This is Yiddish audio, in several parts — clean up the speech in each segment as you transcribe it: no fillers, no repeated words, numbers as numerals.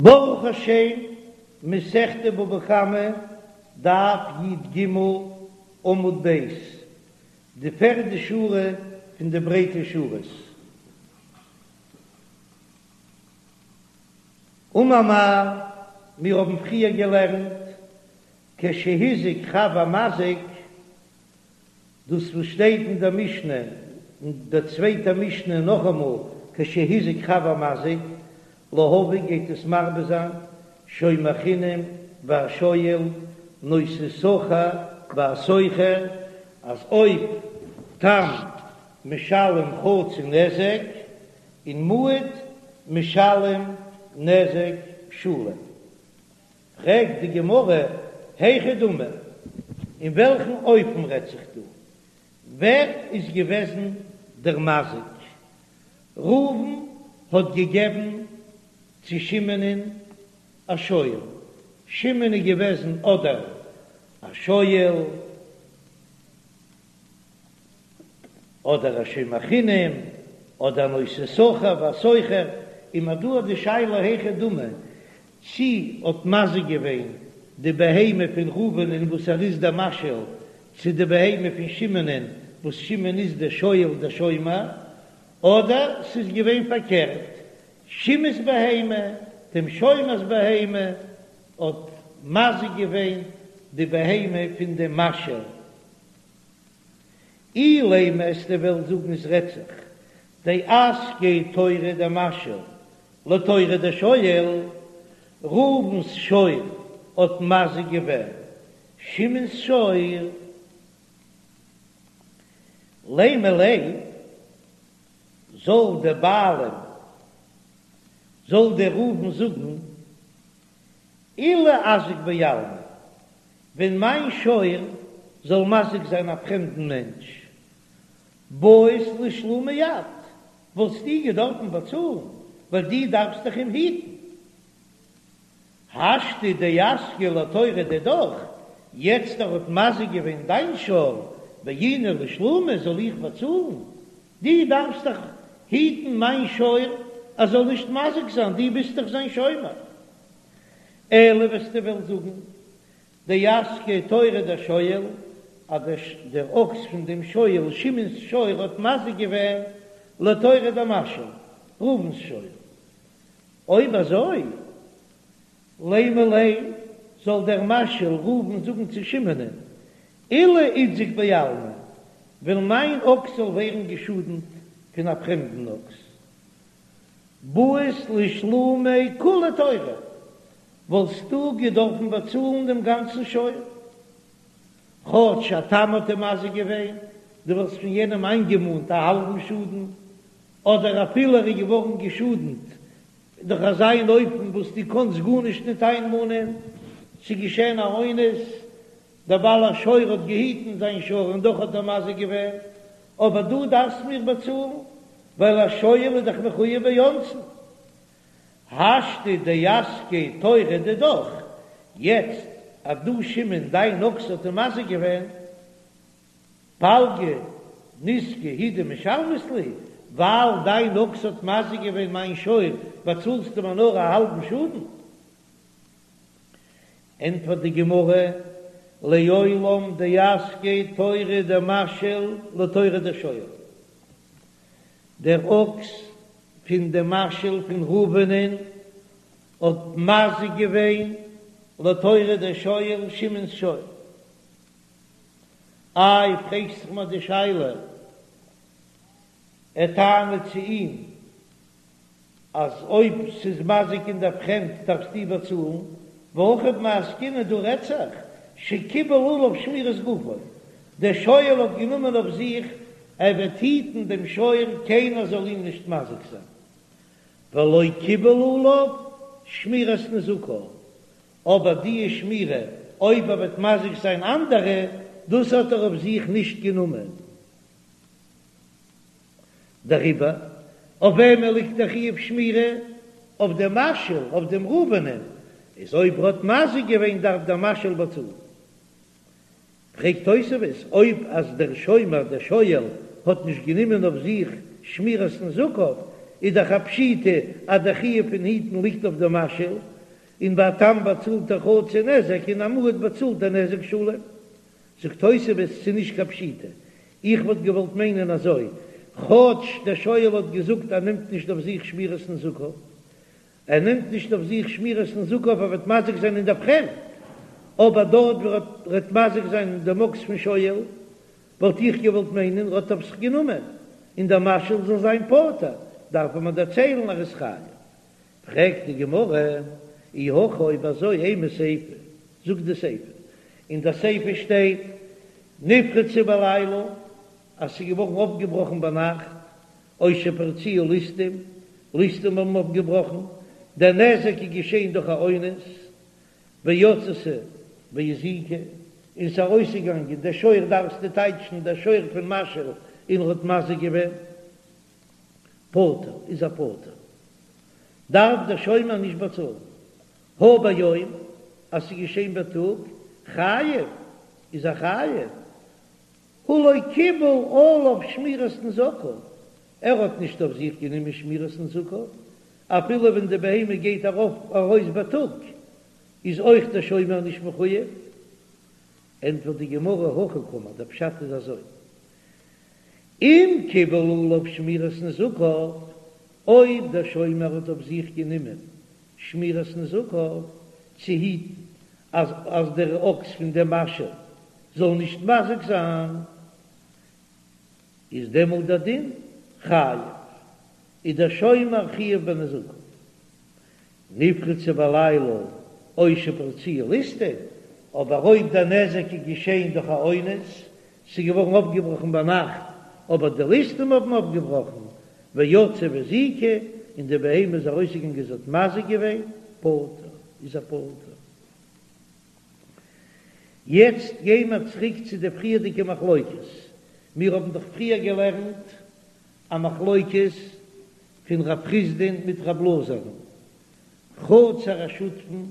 ברוך השם, מסכת בבא קמא, דף י"ג, עמוד ב', די פערדע שורה פון די ברייטע שורות. אמר מר, מיר האבן פריער געלערנט, כשהזיק חב המזיק, דאס וואס שטייט אין דער משנה, אין דער צווייטער משנה נאכאמאל, כשהזיק חב המזיק, להביא גייט עס מרבה זיין, שומר חינם והשואל, נושא שכר והשוכר, אז אויב תם משלם חצי נזק, און מועד משלם נזק שלם. פרעגט די גמרא, היכי דמי, אין וועלכן אופן רעדט זיך דא? ווער איז געוועזן דער מזיק? ראובן האט געגעבן צו שמעונ'ען א שור, שמעון איז געוועזן אדער א שואל, אדער א שומר חינם, אדער נושא שכר והשוכר, און מ'האט דא די שאלה היכי דמי, צי האט מזיק געווען די בהמה פון ראובנ'ען וואס ער איז דער משאיל, צו די בהמה פון שמעונ'ען וואס שמעון איז דער שואל דער שומר, אדער ס'איז געווען פארקערט, שמעון'ס בהמה, דעם שומר'ס בהמה, האט מזיק געווען די בהמה פון דעם משאיל. אילימא וועסטו וועלן זאגן עס רעדט זיך דאזקיה תורא דמשאיל לתורא דשואל, ראובן'ס שור האט מזיק געווען שמעון'ס שור, לימא ליה זאל דער בעלים זאל דער ראובן זאגן אילו אזיק בעלמא ווען מיין שור זאל מזיק זיין א פרעמדן מענטש, בעית לשלומי את, וואלסטו געדארפן באצאלן, ווייל דו דארפסט דאך אים היטן. השתא דאזקיה לתורא דידך, יעצט ער האט מזיק געווען דיין שור, בעינא לשלומי זאל איך באצאלן? דו דארפסט דאך היטן מיין שור ער זאל נישט מזיק זיין, דו ביסט דאך זיין שומר. אלא וועסטו וועלן זאגן, דאזקיה תורא דשואל, אז דער אקס פון דעם שואל, שמעון'ס שור, האט מזיק געווען לתורא דמשאיל, ראובן'ס שור. אויב אזוי, לימא ליה, זאל דער משאיל ראובן זאגן צו שמעונ'ען, אילו איתזק בעלמא, ווען מיין אקס זאל ווערן געשאדנט פון א פרעמדן אקס, בעית לשלומי כוליה תורא, וואלסטו געדארפן באצאלן דעם גאנצן שור, כאטש א תם האט אים מזיק געווען, דו וואלסט פון יענעם איינגעמאנט א האלבן שאדן, אדער אפילו ער איז געווארן געשאדנט דורך אזא אן אופן וואס דו קאנסט גארנישט ניט איינמאנען, ס'איז געשען א אונס, דער בעל השור האט געהיטן זיין שור און דאך האט ער מזיק געווען, אבער דו דארפסט מיר באצאלן, ווייל א שואל איז דאך מחויב באונסין. השתא דאזקיה תורא דידך, יעצט אז דו שמעון דיין אקס האט אים מזיק געווען, פלגא נזקא הוא דמשלמת לי, ווייל דיין אקס האט מזיק געווען מיין שור באצאלסטו מיר נאר א האלבן שאדן. ענטפערט די גמרא, לעולם דאזקיה תורא דמשאיל לתורא דשואל, דער אקס פון דעם משאיל פון ראובנ'ען האט מזיק געווען לתורא דשואל שמעון'ס שור. איי פרעגסט זיך מיר די שאלה, ער טענה'ט צו אים אז אויב ס'איז מזיק אין דער פרעמד דארפסטו באצאלן, והכא במאי עסקינן דא רעדט זיך שקיבל עליו שמירת גופו, דער שואל האט גענומען אויף זיך ער וועט היטן דעם שור קיינער זאל אים נישט מזיק זיין, ולא קיבל עליו שמירת נזקיו, אבער די שמירה אויב ער וועט מזיק זיין אנדערע, דאס האט ער אויף זיך נישט גענומען. דעריבער, אויף וועמען ליגט דער חיוב שמירה? אויף דעם משאיל, אויף דעם ראובנ'ען, איז אויב ער האט מזיק געווען דארף דער משאיל באצאלן. פרעגט תוספות, אויב אז דער שומר, דער שואל, האט נישט גענומען אויף זיך שמירת נזקיו, איז דאך א פשיטא אז דער חיוב פון היטן ליגט אויף דעם משאיל. און ביי א תם באצאלט ער חצי נזק און א מועד באצאלט ער נזק שלם. זאגט תוספות, ס'איז נישט קיין פשיטא, איך וואלט געוואלט מיינען אזוי, כאטש דער שואל האט געזאגט ער נעמט נישט אויף זיך שמירת נזקיו, ער נעמט נישט אויף זיך שמירת נזקיו אויב ער וועט מזיק זיין אין דער פרעמד, אבער דארט וואו ער וועט מזיק זיין דעם אקס פון שואל, וואלט איך געוואלט מיינען ער האט אויף זיך גענומען, און דער משאיל זאל זיין פטור, דארף מען דערציילן ער איז חייב. פרעגט די גמרא, אי הכי אויב אזוי אימא סיפא, זאגט די סיפא, אין די סיפא שטייט נפרצה בלילה אז ס'איז געווארן אויפגעבראכן ביינאכט, או שפרצוה ליסטים, ליסטים האבן אויפגעבראכן, דער נזק איז געשען דורך א אונס, ויצתה והזיקה, און ס'איז ארויסגעגאנגען דער שור דארפסטו טייטשן דער שור פון משאיל און ער האט מזיק געווען. פטור איז ער פטור, דארף דער שומר נישט באצאלן. הא ביום, אז ס'איז געשען בייטאג, חייב איז ער חייב, הא לא קיבל עליו שמירת נזקיו, ער האט נישט אויף זיך גענומען שמירת נזקיו, אפילו ווען די בהמה גייט ארויף ארויס בייטאג, איז אויך דער שומר נישט מחויב. ענטפערט די גמרא, הכי קאמר, דער פשט איז אזוי, אם קיבל עליו שמירת נזקיו, אויב דער שומר האט אויף זיך גענומען שמירת נזקיו, צו היטן אז אז דער אקס פון דעם משאיל זאל נישט מזיק זיין, איז דעמאלט דער דין חייב, איז דער שומר חייב בנזקיו. נפרצה בלילה או שפרצוה ליסטים, אבער אויב דער נזק איז געשען דורך א אונס, ס'איז געווארן אויפגעבראכן ביינאכט, אבער די ליסטים האבן אויפגעבראכן, ויצאה והזיקה, און די בהמה איז ארויסגעגאנגען זי האט מזיק געווען, פטור, איז ער פטור. יעצט גיי מיר צוריק צו די פריערדיגע מחלוקת, מיר האבן דאך פריער געלערנט א מחלוקת פון רב חסדא'ן מיט רב אלעזר'ן, חצר השותפין,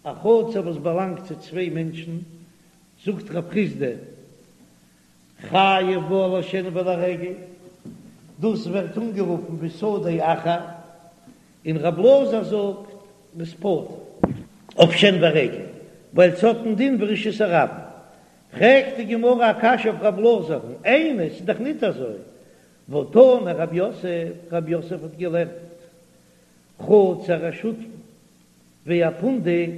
א חצר וואס באלאנגט צו צוויי מענטשן, זאגט רב חסדא, חייב בה על השן ועל הרגל, דאס ווערט אנגערופן בשדה אחר, און רב אלעזר זאגט מ'איז פטור אויף שן ורגל, ווייל ס'האט א דין ווי רשות הרבים. פרעגט די גמרא א קשיא אויף רב אלעזר'ן, איני, ס'איז דאך ניט אזוי, והתני רב יוסף, רב יוסף האט געלערנט חצר השותפין והפונדק,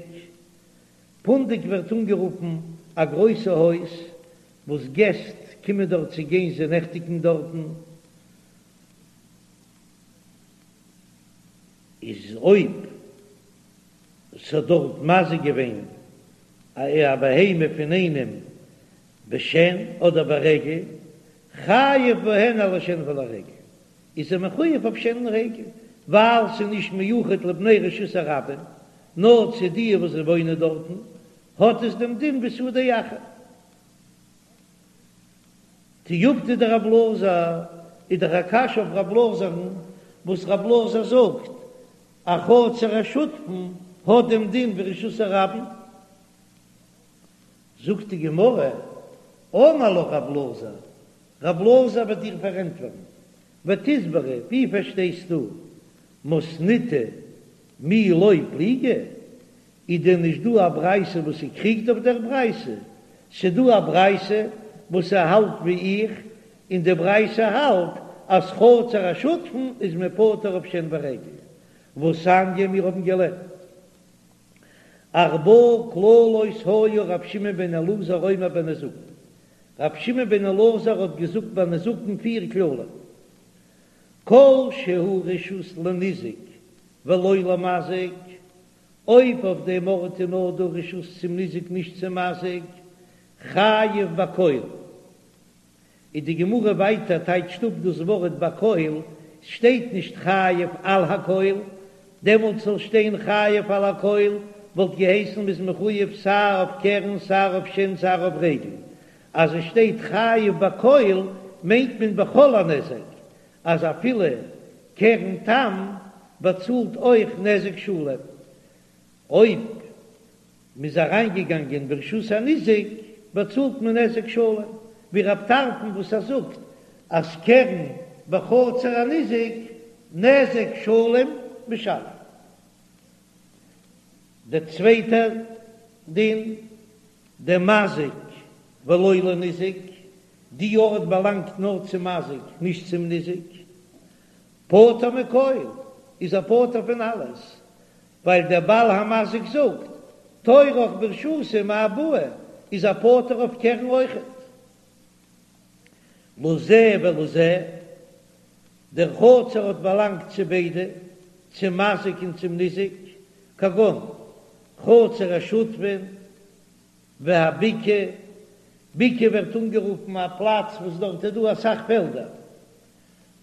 פונדק ווערט אנגערופן א גרויסע הויז וואס געסט קומען דארט צו גיין זיי נעכטיגן דארטן, איז אויב ס'האט דארט מזיק געווען א בהמה פון איינעם בשן אדער ברגל, חייב בהן על השן ועל הרגל, איז ער מחויב אויף שן און רגל, ווייל ס'איז נישט מיוחד לבני רשות הרבים, נאר צו די וואס וואוינען דארטן, האט עס דעם דין ווי שדה אחר. תיובתא דרב אלעזר, איז דאך א קשיא אויף רב אלעזר'ן, וואס רב אלעזר זאגט, א חצר השותפין האט דעם דין ווי רשות הרבים. זאגט די גמרא, אמר לך רב אלעזר, רב אלעזר וועט דיר פארענטפערן, ותסברא, ווי פארשטייסטו מתניתא מי לא פליגי, איז דען נישט דא א ברייתא וואס ס'קריגט אויף דער ברייתא? ס'דא א ברייתא וואס ס'האלט ווי איך, און די ברייתא האלט אז חצר השותפין איז מען פטור אויף שן ורגל, והתניא מיר האבן געלערנט ארבעה כללות היה ר' שמעון בן אלעזר אומר בנזקין, ר' שמעון בן אלעזר האט געזאגט ביי נזקין פיר כללים, כל שהוא רשות לניזק ולא למזיק, אויב אויף דעם ארט איז נאר דא רשות צום ניזק נישט צום מזיק, חייב בכל. איז די גמרא ווייטער טייטשט אפ דאס ווארט בכל, ס'שטייט נישט חייב על הכל, דעמאלט זאל שטיין חייב על הכל וואלט געהייסן מ'איז מחויב סיי אויף קרן סיי אויף שן סיי אויף רגל, אז עס שטייט חייב בכל מיינט מען בכל הנזק, אז אפילו קרן תם באצאלט אויך נזק שלם, אויב מ'איז אריינגעגאנגען ברשות הניזק באצאלט מען נזק שלם, ווי רב טרפון וואס ער זאגט אז קרן בחצר הניזק נזק שלם משלם. דער צווייטער דין, דמזיק ולא לניזק, די ארט באלאנגט נאר צום מזיק נישט צום ניזק, פטור מכל, איז ער פטור פון אלעס, ווייל דער בעל המזיק זאגט, תורך ברשותי מאי בעי, איז ער פטור אויף קרן אויכעט. לזה ולזה, דער חצר האט באלאנגט צו ביידע, צום מזיק און צום ניזק, כגון חצר השותפין והבקעה, בקעה ווערט אנגערופן א פלאץ וואס דארט איז דא אסאך פעלדער,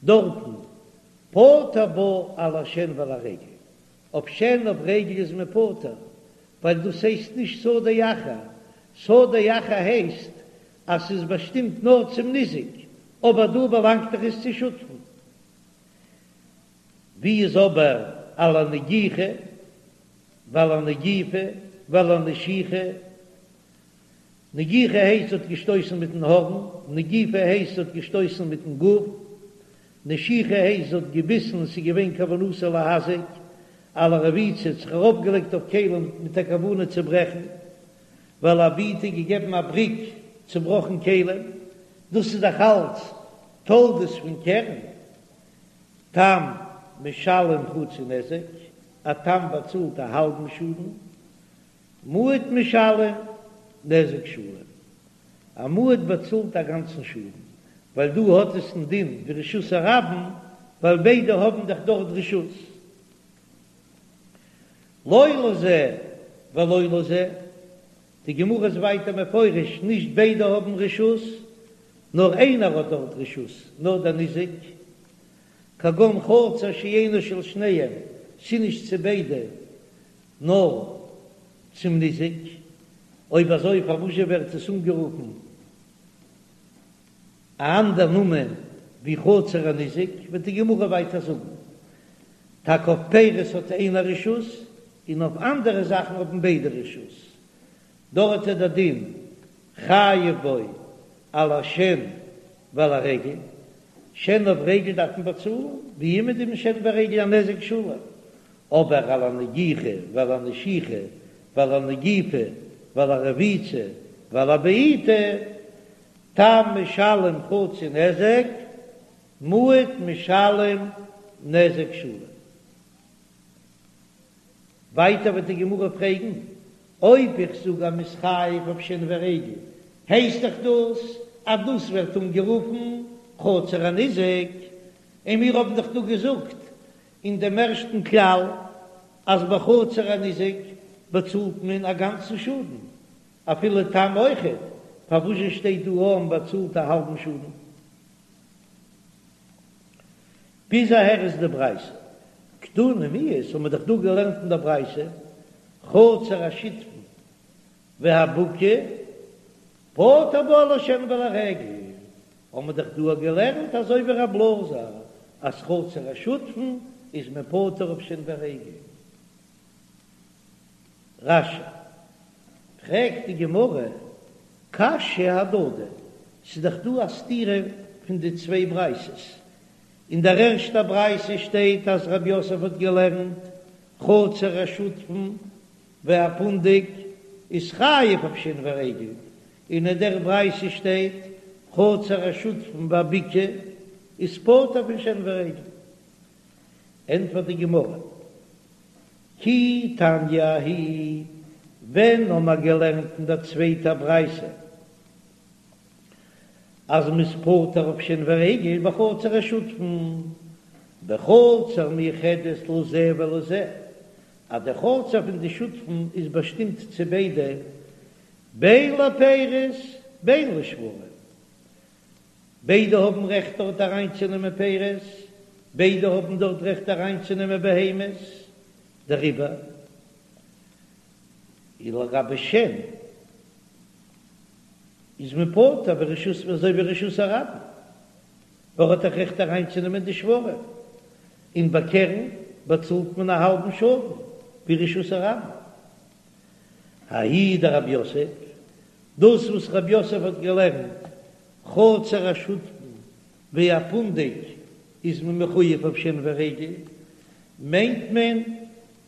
דארטן פטור בה על השן ועל הרגל, אויף שן אויף רגל איז מען פטור, ווייל דאס הייסט נישט שדה אחר, שדה אחר הייסט אז ס'איז באשטימט נאר צום ניזק, אבער דא באלאנגט דאך עס צו שותפים. ווי איז אבער על הנגיחה ועל הנגיפה ועל הנשיכה? נגיחה הייסט ס'האט געשטויסן מיטן הארן, נגיפה הייסט ס'האט געשטויסן מיטן גוף, נשיכה הייסט ס'האט געביסן און ס'איז געווען כוונתו להזיק, על הרביצה האט זיך ארויפגעלייגט אויף כלים מיט א כוונה צו ברעכן, ועל הבעיטה געגעבן א בריק צובראכן כלים, דאס איז דאך אלץ תולדות פון קרן, תם משלם חצי נזק, א תם באצאלט א האלבן שאדן, מועד משלם נזק שלם, א מועד באצאלט א גאנצן שאדן, ווייל דא האט עס א דין ווי רשות הרבים, ווייל ביידע האבן דאך דארט רשות. לא לזה ולא לזה, די גמרא איז ווייטער מפרש, נישט ביידע האבן רשות, נאר איינער האט דארט רשות, נאר דער ניזק, כגון חצר שאינה של שניהם, ס'נישט צו ביידע, נאר צום ניזק, אויב אזוי פארוואזשע ווערט עס אנגערופן א אנדער נאמען ווי חצר הניזק, וועט די גמרא ווייטער זאגן, טאקע אויף פירות האט איינער רשות, און אויף אנדערע זאכן האבן ביידע רשות, דארט איז דער דין חייב בו על השן ועל הרגל, שן אויף רגל דארף מען באצאלן, ווי אימער די שן ורגל א נזק שלם, אבער על הנגיחה ועל הנשיכה ועל הנגיפה ועל הרביצה ועל הבעיטה, תם משלם חצי נזק, מועד משלם נזק שלם. ווייטער וועט די גמרא פרעגן, אויב איך זאג אז מ'איז חייב אויף שן ורגל, הייסט דאך דאס אז דאס ווערט אנגערופן חצר הניזק, און מיר האבן דאך דא געזאגט אין דעם ערשטן כלל אז בחצר הניזק באצאלט מען א גאנצן שאדן, אפילו תם אויכעט, פארוואזשע שטייט דא אז מ'באצאלט א האלבן שאדן? ביז אהער איז די ברייתא. קתני מיהת, האבן מיר דאך דא געלערנט אין דער ברייתא, חצר השותפין והבקעה פטור בה על השן ועל הרגל, האבן מיר דאך דא געלערנט אזוי ווי רב אלעזר אז חצר השותפין איז מען פטור אויף שן ורגל. רש"י, פרעגט די גמרא, קשיא אהדדי, ס'איז דאך דא א סתירה פון די צוויי ברייתות, אין דער ערשטער ברייתא שטייט אז רב יוסף האט געלערנט חצר השותפין והפונדק איז חייב אויף שן ורגל, און אין דער ברייתא שטייט חצר השותפין והבקעה איז פטור פון שן ורגל. ענטפערט די גמרא, כי תניא ההיא, ווען האבן מיר געלערנט אין דער צווייטער ברייתא אז מ'איז פטור אויף שן ורגל בחצר השותפין, בחצר מיוחדת לזה ולזה, אז די חצר פון די שותפין איז באשטימט צו ביידע, בין לפירות בין לשוורים, ביידע האבן רעכט דארט אריינצונעמען פירות, ביידע האבן דארט רעכט אריינצונעמען בהמות, דעריבער איז לגבי שן איז מען פטור ברשות אזוי ווי רשות הרבים, ווייל ער האט דאך רעכט אריינצונעמען די שוורים, און ביי קרן באצאלט מען א האלבן שאדן ווי רשות הרבים. ההיא דרב יוסף, דאס וואס רב יוסף האט געלערנט חצר השותפין והפונדק איז מען מחויב אויף שן ורגל, מיינט מען.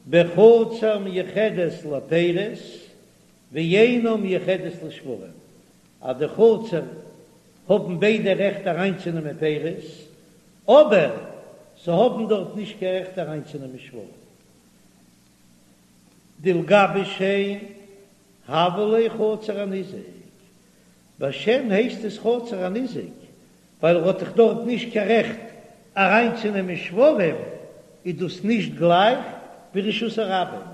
בחצר מיוחדת לפירות ואינה מיוחדת לשוורים, אז די חצר האבן ביידע רעכט אריינצונעמען פירות, אבער זיי האבן דארט נישט קיין רעכט אריינצונעמען שוורים. דלגבי שן הוה ליה חצר הניזק, ביי שן הייסט עס חצר הניזק ווייל ער האט דאך דארט נישט קיין רעכט אריינצונעמען שוורים, איז דאס נישט גלייך ווי רשות הרבים.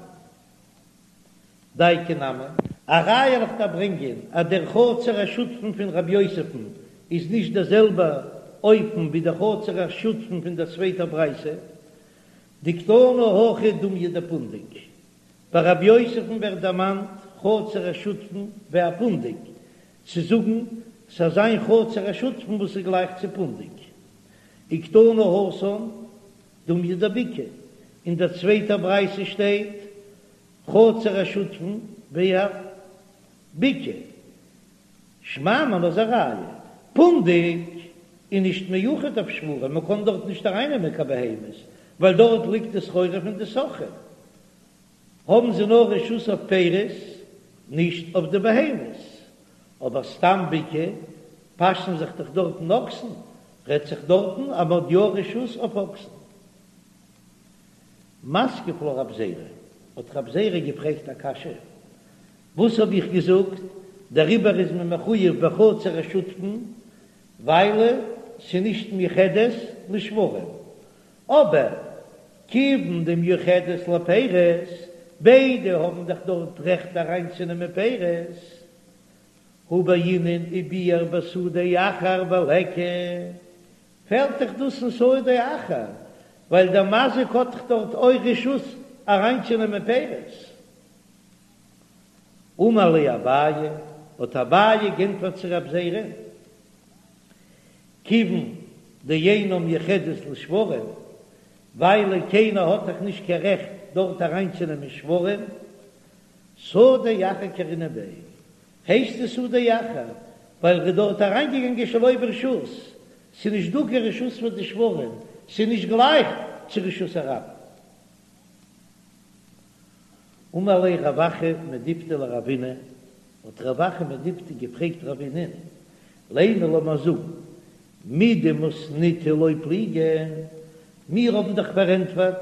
דייקא נמי. א ראיה וועל איך דיר ברענגען אז דער חצר השותפין פון רב יוסף'ן איז נישט דער זעלבער אופן ווי דער חצר השותפין פון דער צווייטער ברייתא, דקתני הכא דומיא דפונדק. ביי רב יוסף'ן ווערט דערמאנט חצר השותפין ווי א פונדק, צו זאגן ס'זאל זיין חצר השותפין וואס איז גלייך צו פונדק. וקתני התם דומיא דבקעה, אין דער צווייטער ברייתא שטייט חצר השותפין ווי א בקעה. שמע מינה איז א ראיה, פונדק איז נישט מיוחד אויף שוורים, מען קען דארט נישט ארייננעמען קיין בהמות, ווייל דארט ליגט די סחורה פון די סוחרים, האבן זיי נאר רשות אויף פירות, נישט אויף די בהמות. אבער סתם בקעה פאשן זיך דאך דארטן אקסן, רעדט זיך דארטן אז מען האט יא רשות אויף אקסן. מתקיף לה רב זירא, האט רב זירא געפרעגט א קשיא, וואס האב איך געזאגט, דעריבער איז מען מחויב בחצר השותפין, ווייל ס'נישט מיוחדת לשוורים, אבער כיוון דמיוחדת לפירות, ביידע האבן דאך דארט רעכט אריינצונעמען פירות, הא בעינן וביער בשדה אחר וליכא, פעלט דאך דאס אין שדה אחר, ווייל דער מזיק האט דאך דארט אויך רשות אריינצונעמען פירות. אמר ליה אביי, האט אביי גענטפערט צו רב זירא, כיוון דאינה מיוחדת לשוורים, ווייל קיינער האט דאך נישט קיין רעכט דארט אריינצונעמען שוורים, שדה אחר קרינן ביה, הייסט עס שדה אחר, ווייל ר'איז דארט אריינגעגאנגען שלא ברשות, ס'איז נישט דא קיין רשות פאר די שוורים, ס'איז נישט גלייך צו רשות הרבים. אמר ליה רב אחא מדיפתי לרבינא, האט רב אחא מדיפתי געפרעגט רבינא'ן, לימא לאמיר זאגן, מדמתניתא לא פליגי, מיר האבן דאך פארענטפערט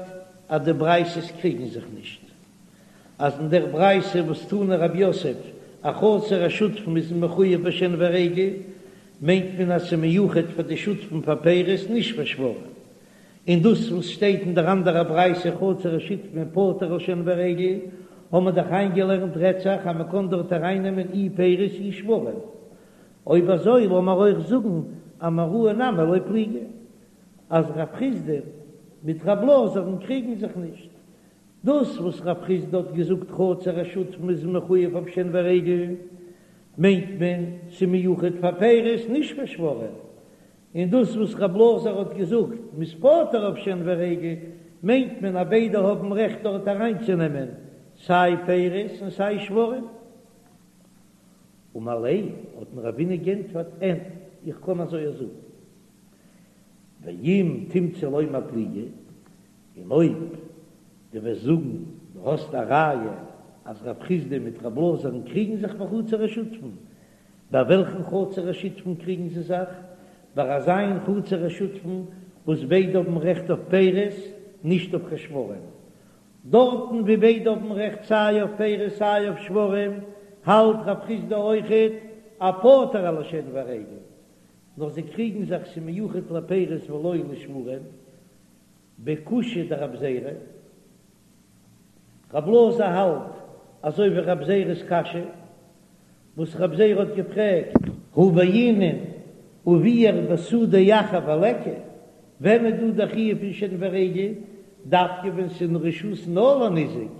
אז די ברייתות קריגן זיך נישט, אז אין דער ברייתא וואס תני רב יוסף א חצר השותפין איז מחויב בשן ורגל, מיינט מען אז ס'איז מיוחד פאר די שותפין פאר פירות נישט פאר שוורים, און דאס וואס שטייט אין דער אנדערער ברייתא חצר השותפין פטור על שן ורגל, האבן מיר דאך איינגעלערנט רעדט זיך אז מען קען דארט ארייננעמען אי פירות אי שוורים. אויב אזוי לאמיר אויך זאגן אמוראי נמי לא פליגי, אז רב חסדא מיט רב אלעזר'ן קריגן זיך נישט. דאס וואס רב חסדא האט געזאגט חצר השותפין איז מחויב אויף שן ורגל, מיינט מען ס'מיוחד פאר פירות נישט פאר שוורים, און דאס וואס רב אלעזר האט געזאגט מ'איז פטור אויף שן ורגל, מיינט מען אז ביידע האבן רעכט דארט אריינצונעמען סיי פירות און סיי שוורים. אמר ליה, האט אים רבינא גענטפערט, אין, איך קען אזוי זאגן, ואם תמצא לומר פליגי, און אויב דו וועסט זאגן דו האסט א ראיה אז רב חסדא מיט רב אלעזר'ן קריגן זיך בחצר השותפין, ביי וועלכן חצר השותפין קריגן זיי זיך? ביי אזא חצר השותפין וואס ביידע האבן רעכט אויף פירות, נישט אויף קיין שוורים. דארטן ווי ביידע האבן רעכט סיי אויף פירות סיי אויף שוורים, האלט רב חסדא אויכעט אז פטור על השן והרגל, נאר זיי קריגן זיך ס'מיוחד לפירות ולא לשוורים, בקושיא דרב זירא. רב אלעזר האלט אזוי ווי רב זירא'ס קשיא וואס רב זירא האט געפרעגט. הא בעינן וביער בשדה אחר וליכא, ווען איז דא דער חיוב פון שן ורגל, דווקא ווען ס'איז אין רשות נאר לניזק,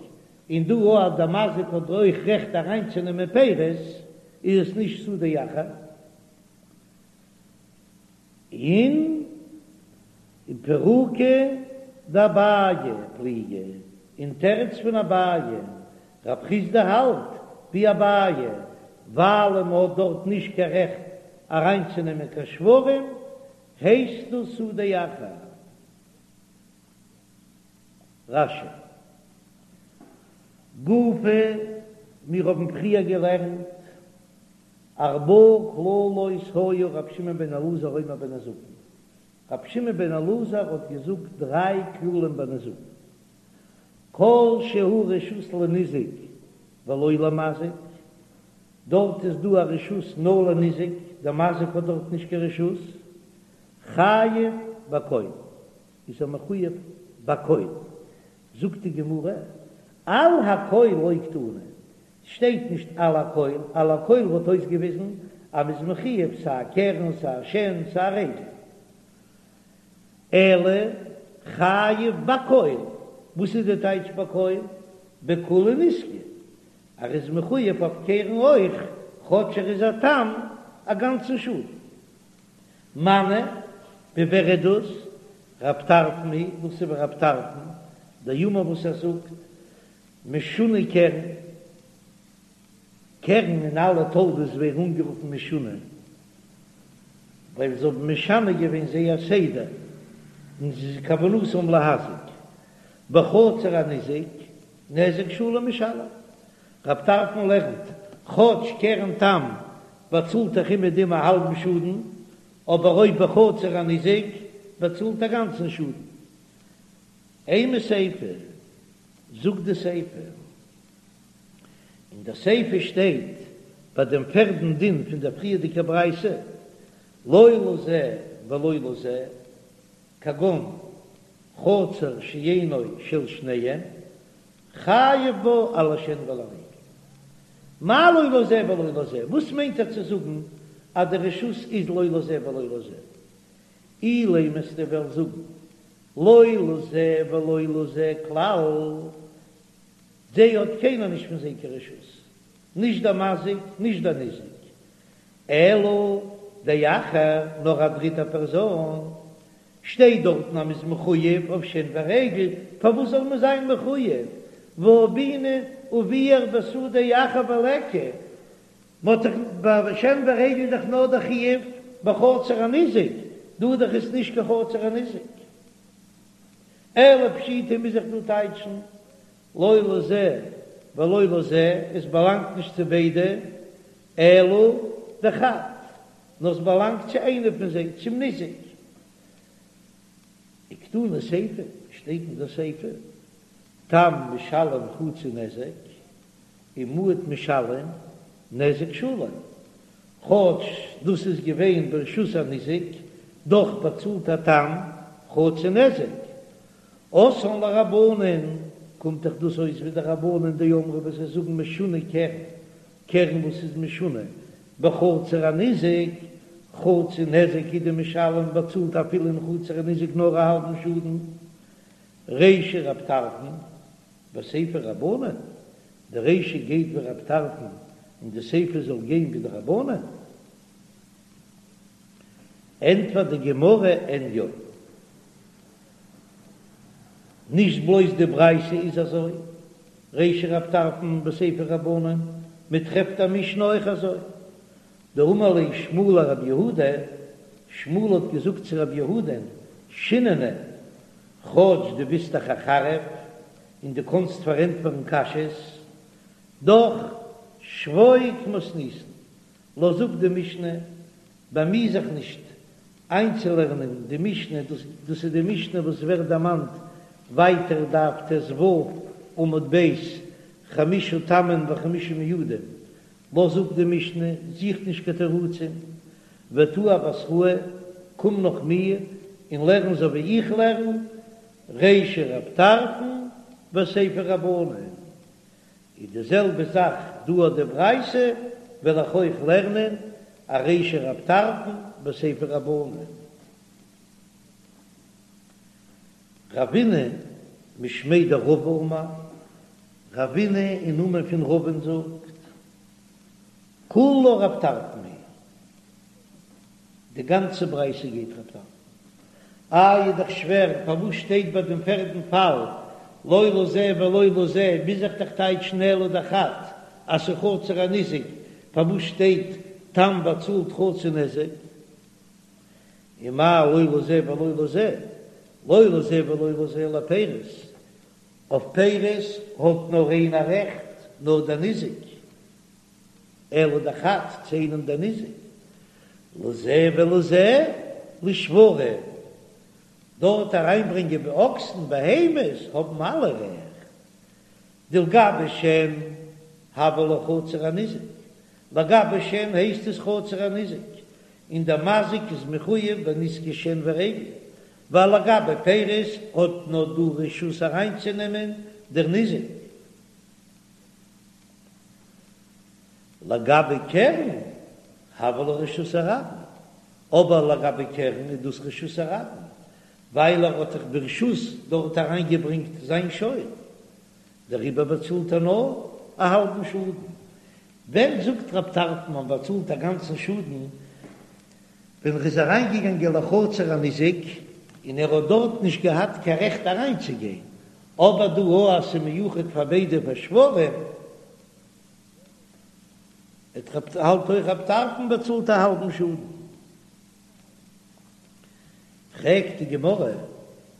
און דא אז דער מזיק האט אויך רעכט אריינצונעמען פירות, איז עס נישט שדה אחר. און בפירוקא דאביי פליגי, אין תירוץ פון אביי, רב חסדא האלט ווי אביי, ווייל מען האט דארט נישט קיין רעכט אריינצונעמען קיין שוורים, הייסט דאס שדה אחר. רש"י. גופא, מיר האבן פריער געלערנט, ארבעה כללות היה רבי שמעון בן אלעזר אומר בנזקין, רבי שמעון בן אלעזר האט געזאגט דריי כללים ביי נזקין, כל שהוא רשות לניזק ולא למזיק, דארט איז דא א רשות נאר לניזק, דער מזיק האט דארט נישט קיין רשות, חייב בכל, איז ער מחויב בכל, זאגט די גמרא, על הכל לא קתני, ס'שטייט נישט על הכל, על הכל וואלט אויסגעוויזן אז מ'איז מחויב סיי קרן סיי שן סיי רגל, אלא חייב בכל, וואס איז די טייטש בכל? בכולי נזקא, ער איז מחויב אויף קרן אויך, כאטש ער איז א תם א גאנצן שאדן. מני, ווי ווער איז דאס? רב טרפון היא, דאס איז ווי רב טרפון, דאמר וואס ער זאגט, משונה קרן, קרן און אלע תולדות ווערן אנגערופן משונה, ווייל זיי האבן משנה געווען זייער סדר, און ס'איז כוונתם להזיק. בחצר הניזק, נזק שלם משלם. רב טרפון לערנט, כאטש קרן תם באצאלט דאך אומעדום א האלבן שאדן, אבער אויב בחצר הניזק באצאלט א גאנצן שאדן. אימא סיפא, זאגט די סיפא, אין די סיפא שטייט ביי דעם פערדן דין פון דער פריערדיגער ברייתא, לא לזה ולא לזה, כגון חצר שאינו של שניהם, חייב בה על השן ועל הרגל. מאי לא לזה ולא לזה? וואס מיינט ער צו זאגן אז די רשות איז לא לזה ולא לזה? אילימא וועסטו וועלן זאגן לא לזה ולא לזה כלל, זיי האט קיינער נישט פון זיי קיין רשות, נישט דער מזיק נישט דער ניזק, אלא דאחר, נאר א דריטע פערזאן, שטייט דארטן אז מ'איז מחויב אויף שן ורגל, פארוואס זאל מען זיין מחויב? והא בעינן וביער בשדה אחר וליכא, מ'האט דאך ביי שן ורגל דאך נאר די חיוב בחצר הניזק, דא דאך איז נישט קיין חצר הניזק. אלא פשיטא מוז איך דא טייטשן לא לזה ולא לזה, עס באלאנגט נישט צו ביידע, אלא דחד, נאר עס באלאנגט צו איינער פון זיי, צום ניזק. וקתני סיפא, שטייט אין דער סיפא, תם משלם חצי נזק, ומועד משלם נזק שלם, כאטש דאס איז געווען ברשות הניזק, דאך באצאלט א תם חצי נזק. אתאן לרבנן, קומט דאך דאס אויס ווי די רבנן דאמרי וואס זיי זאגן משונה קרן, קרן וואס איז משונה בחצר הניזק, חצי נזק הוא דמשלם באצאלט אפילו אין חצר הניזק נאר א האלבן שאדן, רישא רב טרפון וסיפא רבנן, די רישא גייט ווי רב טרפון און די סיפא זאל גיין ווי די רבנן? ענטפערט די גמרא אין יא. נישט בלויז די ברייתא איז אזוי, רישא רב טרפון וסיפא רבנן, מען טרעפט א משנה אויך אזוי, דאמר ליה שמואל לרב יהודה, שמואל האט געזאגט צו רב יהודה'ן, שיננא, כאטש דו ביסט דאך א חריף און דו קאנסט פארענטפערן קשיות, דאך שבוק מתניתין, לאז אפ די משנה, באמי זיך נישט איינצולערנען די משנה, דאס איז די משנה וואס ווערט דערמאנט ווייטער דף ט"ו עמוד ב', חמשה תמים וחמשה מועדים, לאז אפ די משנה, זוך נישט קיין תירוצים, ותא אבתראי, קום נאך מיר און לערן אזוי ווי איך לערן, רישא רב טרפון וסיפא רבנן, איז די זעלבע זאך דא אויף די ברייתא, וועל איך אויך לערנען א רישא רב טרפון וסיפא רבנן. רבינא משמיה דרבא אמר, רבינא אין נאמען פון רבא'ן זאגט, כולה רב טרפון היא, די גאנצע ברייתא גייט רב טרפון. איי איז דאך שווער, פארוואס שטייט ביי דעם פערדן פאל לא לזה ולא לזה, מוז איך דאך טייטשן אלא דחד אז ס'איז חצר הניזק, פארוואס שטייט תם באצאלט חצי נזק? ומאי לא לזה ולא לזה, לא לזה ולא לזה לפירות. אויף פירות האט נאר איינער רעכט, נאר דער ניזק, אלא דחד צו איינעם דער ניזק, לזה ולזה לשוורים, דארט אריינברענגען די אקסן בהמות האבן אלע רעכט, דלגבי שן הויא לה חצר הניזק, לגבי שן הייסט עס חצר הניזק, און דער מזיק איז מחויב בנזקי שן ורגל, ווייל לגבי פירות האט נאר דא רשות אריינצונעמען דער ניזק. לגבי קרן הויא לה רשות הרבים, אבער לגבי קרן איז דאס רשות הרבים, ווייל ער האט דאך ברשות דארט אריינגעברענגט זיין שור, דעריבער באצאלט ער נאר א האלבן שאדן. ווען זאגט רב טרפון מען באצאלט א גאנצן שאדן? ווען ער איז אריינגעגאנגען לחצר הניזק און ער האט דארט נישט געהאט קיין רעכט אריינצוגיין, אבער דא אז ס'איז מיוחד פאר ביידע פאר שוורים, האלט אויך רב טרפון באצאלט א האלבן שאדן. פרעגט די גמרא,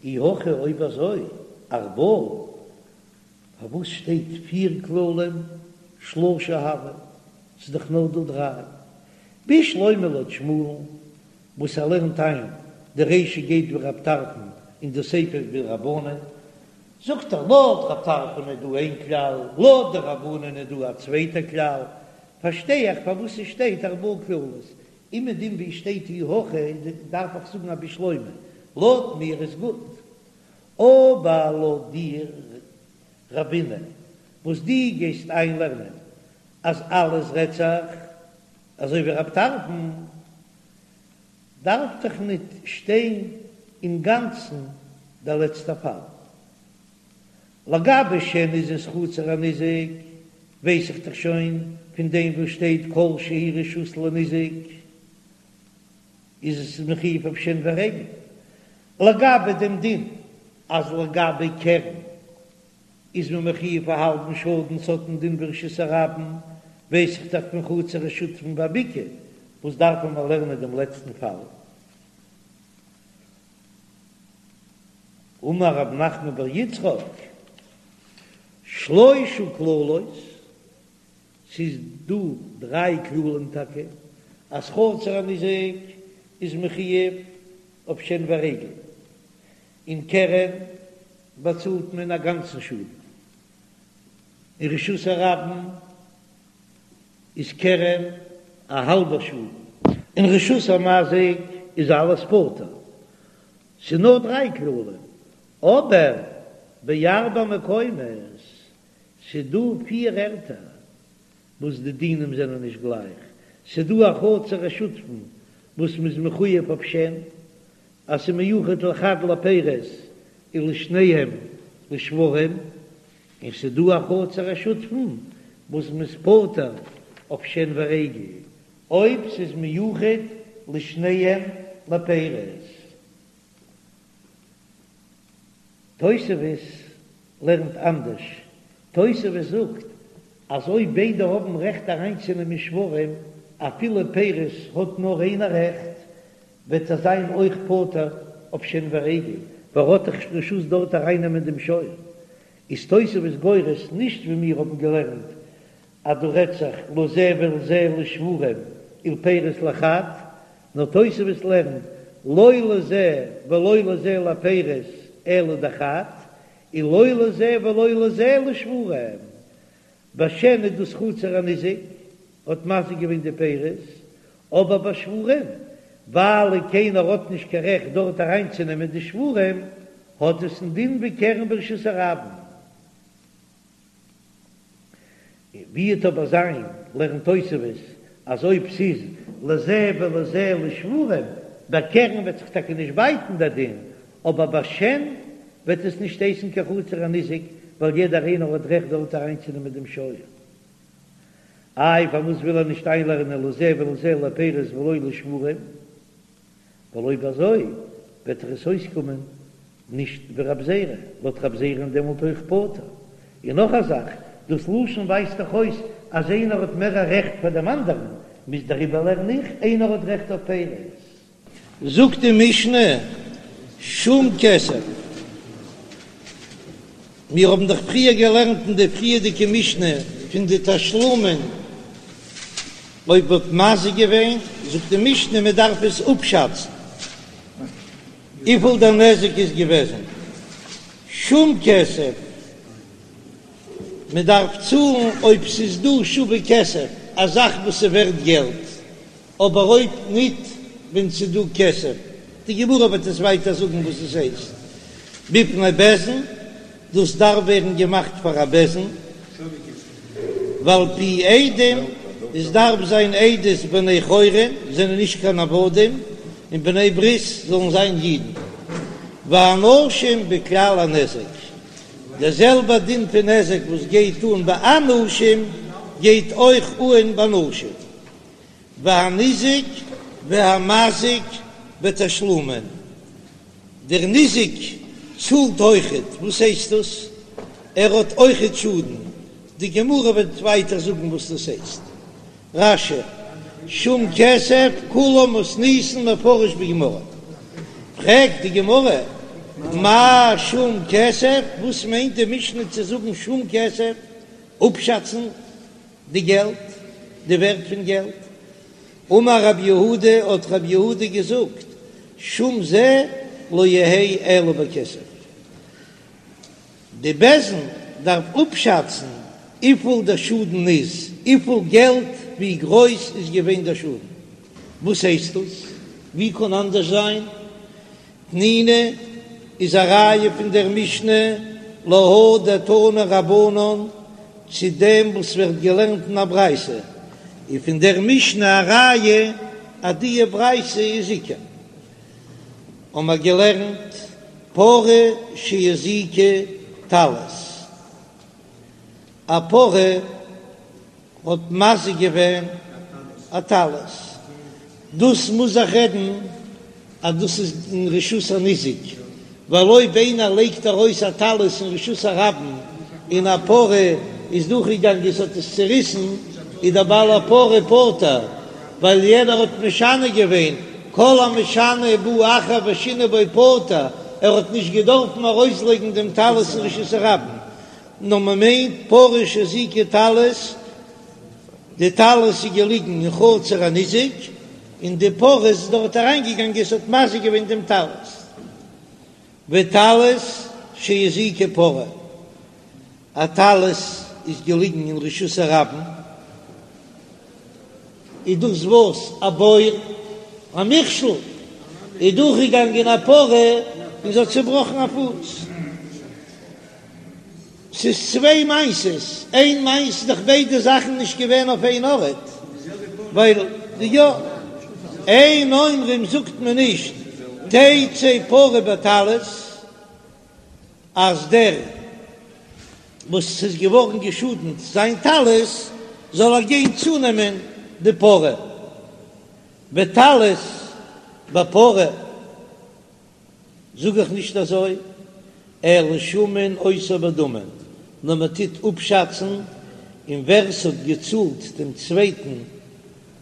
אי הכי אויב אזוי ארבעה, פארוואס שטייט פיר כללים שלשה הוו? ס'איז דאך נאר דא דריי. בשלמא לויט שמואל'ן וואס ער לערנט איין די רישא גייט ווי רב טרפון און די סיפא ווי רבנן, זאגט ער לויט רב טרפון איז דא איין כלל, לויט די רבנן איז דא א צווייטע כלל, פארשטיי איך פארוואס ס'שטייט ארבעה כללות, אומעדום ווי שטייט אי הכי דארף איך זאגן א בשלמא, לויט מיר איז גוט, אבער לויט דיר רבינא וואס דו גייסט איינלערנען אז אלעס רעדט זיך אזוי ווי רב טרפון, דארף דאך ניט שטיין אינגאנצן דער לעצטער פאל. לגבי שן איז עס חצר הניזק, ווייס איך דאך שוין פון דעם וואס שטייט כל שהוא רשות לניזק איז עס מחויב אויף שן ורגל. לגבי דעם דין אז לגבי קרן איז מען מחויב א האלבן שאדן ס'האט א דין ווי רשות הרבים, ווייס איך דאך פון חצר השותפין והבקעה, וואס דארף מען לערנען דעם לעצטן פאל? אמר רב נחמן בר יצחק, שלשה כללות, ס'איז דא דריי כללים טאקע, אז חצר הניזק איז מחויב אויף שן ורגל, און קרן באצאלט מען א גאנצן שאדן, אין רשות הרבים איז קרן א האלבער שאדן, אין רשות המזיק איז אלעס פטור, ס'איז נאר דריי כללים, אבער בארבעה מקומות, ס'איז דא פיר ערטער וואס די דינים זענען נישט גלייך, ס'איז דא א חצר השותפין וואס מ'איז מחויב אויף שן, אז ס'איז מיוחד לחד לפירות ולשניהם לשוורים, און ס'איז דא א חצר השותפין וואס מ'איז פטור אויף שן ורגל אויב ס'איז מיוחד לשניהם לפירות. תוספות לערנט אנדערש, תוספות זאגט אז אויב ביידע האבן רעכט אריינצונעמען שוורים אפילו פירות האט נאר איינער רעכט, וועט ער זיין אויך פטור אויף שן ורגל, ווייל ער האט דאך רשות דארט ארייננעמען דעם שור. איז תוספות גורס נישט ווי מיר האבן געלערנט אז דא רעדט זיך לזה ולזה לשוורים ולפירות לחד, נאר תוספות לערנט לא לזה ולא לזה לפירות אלא דחד, און לא לזה ולא לזה לשוורים. ביי שן איז דאס חצר הניזק האט מזיק געווען די פירות, אבער ביי שוורים, ווייל קיינער האט נישט קיין רעכט דארט אריינצונעמען די שוורים, האט עס א דין ווי קרן ברשות הרבים. ווי וועט אבער זיין, לערנט תוספות, אז אויב ס'איז לזה ולזה לשוורים, ביי קרן וועט זיך טאקע נישט בייטן דער דין, אבער ביי שן וועט עס נישט הייסן קיין חצר הניזק, ווייל יעדער איינער האט רעכט דארט אריינצונעמען דעם שור. איי פארוואס וויל ער נישט איינלערנען לזה ולזה לפירות ולא לשוורים? ווייל אויב אזוי וועט דאך עס אויסקומען נישט ווי רב זירא, לויט רב זירא איז דעמאלט אויך פטור. און נאך א זאך, דאס לשון ווייזט דאך אויס אז איינער האט מער א רעכט פאר דעם אנדערן, מוז דעריבער לערן איך, איינער האט רעכט אויף פירות. זאגט די משנה, שום כסף. מיר האבן דאך פריער געלערנט אין די פריערדיגע משנה פון די תשלומין, אויב מ'האט מזיק געווען, זאגט די משנה מען דארף עס אפשאצן וויפיל דער נזק איז געוועזן, שום כסף, מען דארף צאלן אויב ס'איז דא שווה כסף, א זאך וואס איז ווערט געלט, אבער אויב ניט ווען ס'איז דא כסף, די גמרא וועט עס ווייטער זאגן וואס עס הייסט בפני בית דין, דאס דארף ווערן געמאכט פאר א בית דין, ועל פי עדים, עס דארף זיין עדות בני חורין, זענען נישט קיין עבדים, און בני ברית זאלן זיין אידן, והנשים בכלל הנזק, דער זעלבער דין פון נזק וואס גייט אן ביי אנשים גייט אויך אן ביי נשים. והניזק והמזיק בתשלומין, דער ניזק צאלט אויכעט, וואס הייסט דאס? ער האט אויכעט שאדן, די גמרא וועט ווייטער זאגן וואס דאס הייסט. רש"י, שום כסף כולה מתניתין מפרש בגמרא, פרעגט די גמרא, מאי שום כסף, וואס מיינט די משנה צו זאגן שום כסף, אפשאצן די געלט, די ווערט פון געלט. אמר רב יהודה, האט רב יהודה געזאגט, שום זה לא יהא אלא בכסף. די בית דין דארף אפשאצן וויפיל דער שאדן איז, וויפיל געלט, ווי גרויס איז געווען דער שאדן. וואס הייסט דאס? ווי קען אנדערש זיין? תנינא איז א ראיה פון דער משנה להא דתנו רבנן צו דעם וואס ווערט געלערנט אין א ברייתא, און פון דער משנה א ראיה אז די ברייתא איז עיקר. האבן מיר געלערנט פרה שהזיקה טלית, א פרה האט מזיק געווען א טלית, דאס מוז זיך רעדן אז דאס איז אין רשות הניזק, ווייל אויב איינער לייגט ארויס א טלית אין רשות הרבים און א פרה איז דורכגעגאנגען עס האט עס צוריסן, איז דער בעל הפרה פטור, ווייל יענער האט משנה געווען, כל המשנה ובא אחר ושינה בו פטור, ער האט נישט געדארפן ארויסלייגן דעם טלית אין רשות הרבים. נאר מען מיינט פרה שהזיקה טלית, די טלית איז געליגן אין חצר הניזק, און די פרה איז דארט אריינגעגאנגען, עס האט מזיק געווען דעם טלית. וטלית שהזיקה פרה, א טלית איז געליגן אין רשות הרבים, איז דאס וואס א בור, א מכשול, איז דורכגעגאנגען א פרה און זי האט צעבראכן א פוס. ס'איז צוויי מעשות, איין מעשה איז דאך ביידע זאכן נישט געווען אויף איין ארט, ווייל די יא, אין אומרים זאגט מען נישט תצא פרה בטלית אז דער וואס ס'איז געווארן געשאדנט זיין טלית זאל ער גיין צונעמען די פרה, וטלית בפרה. זאג איך נישט אזוי, אלא שמין אותו בדמים, נאר מען טוט אפשאצן, און ווער ס'האט געצאלט דעם צווייטן,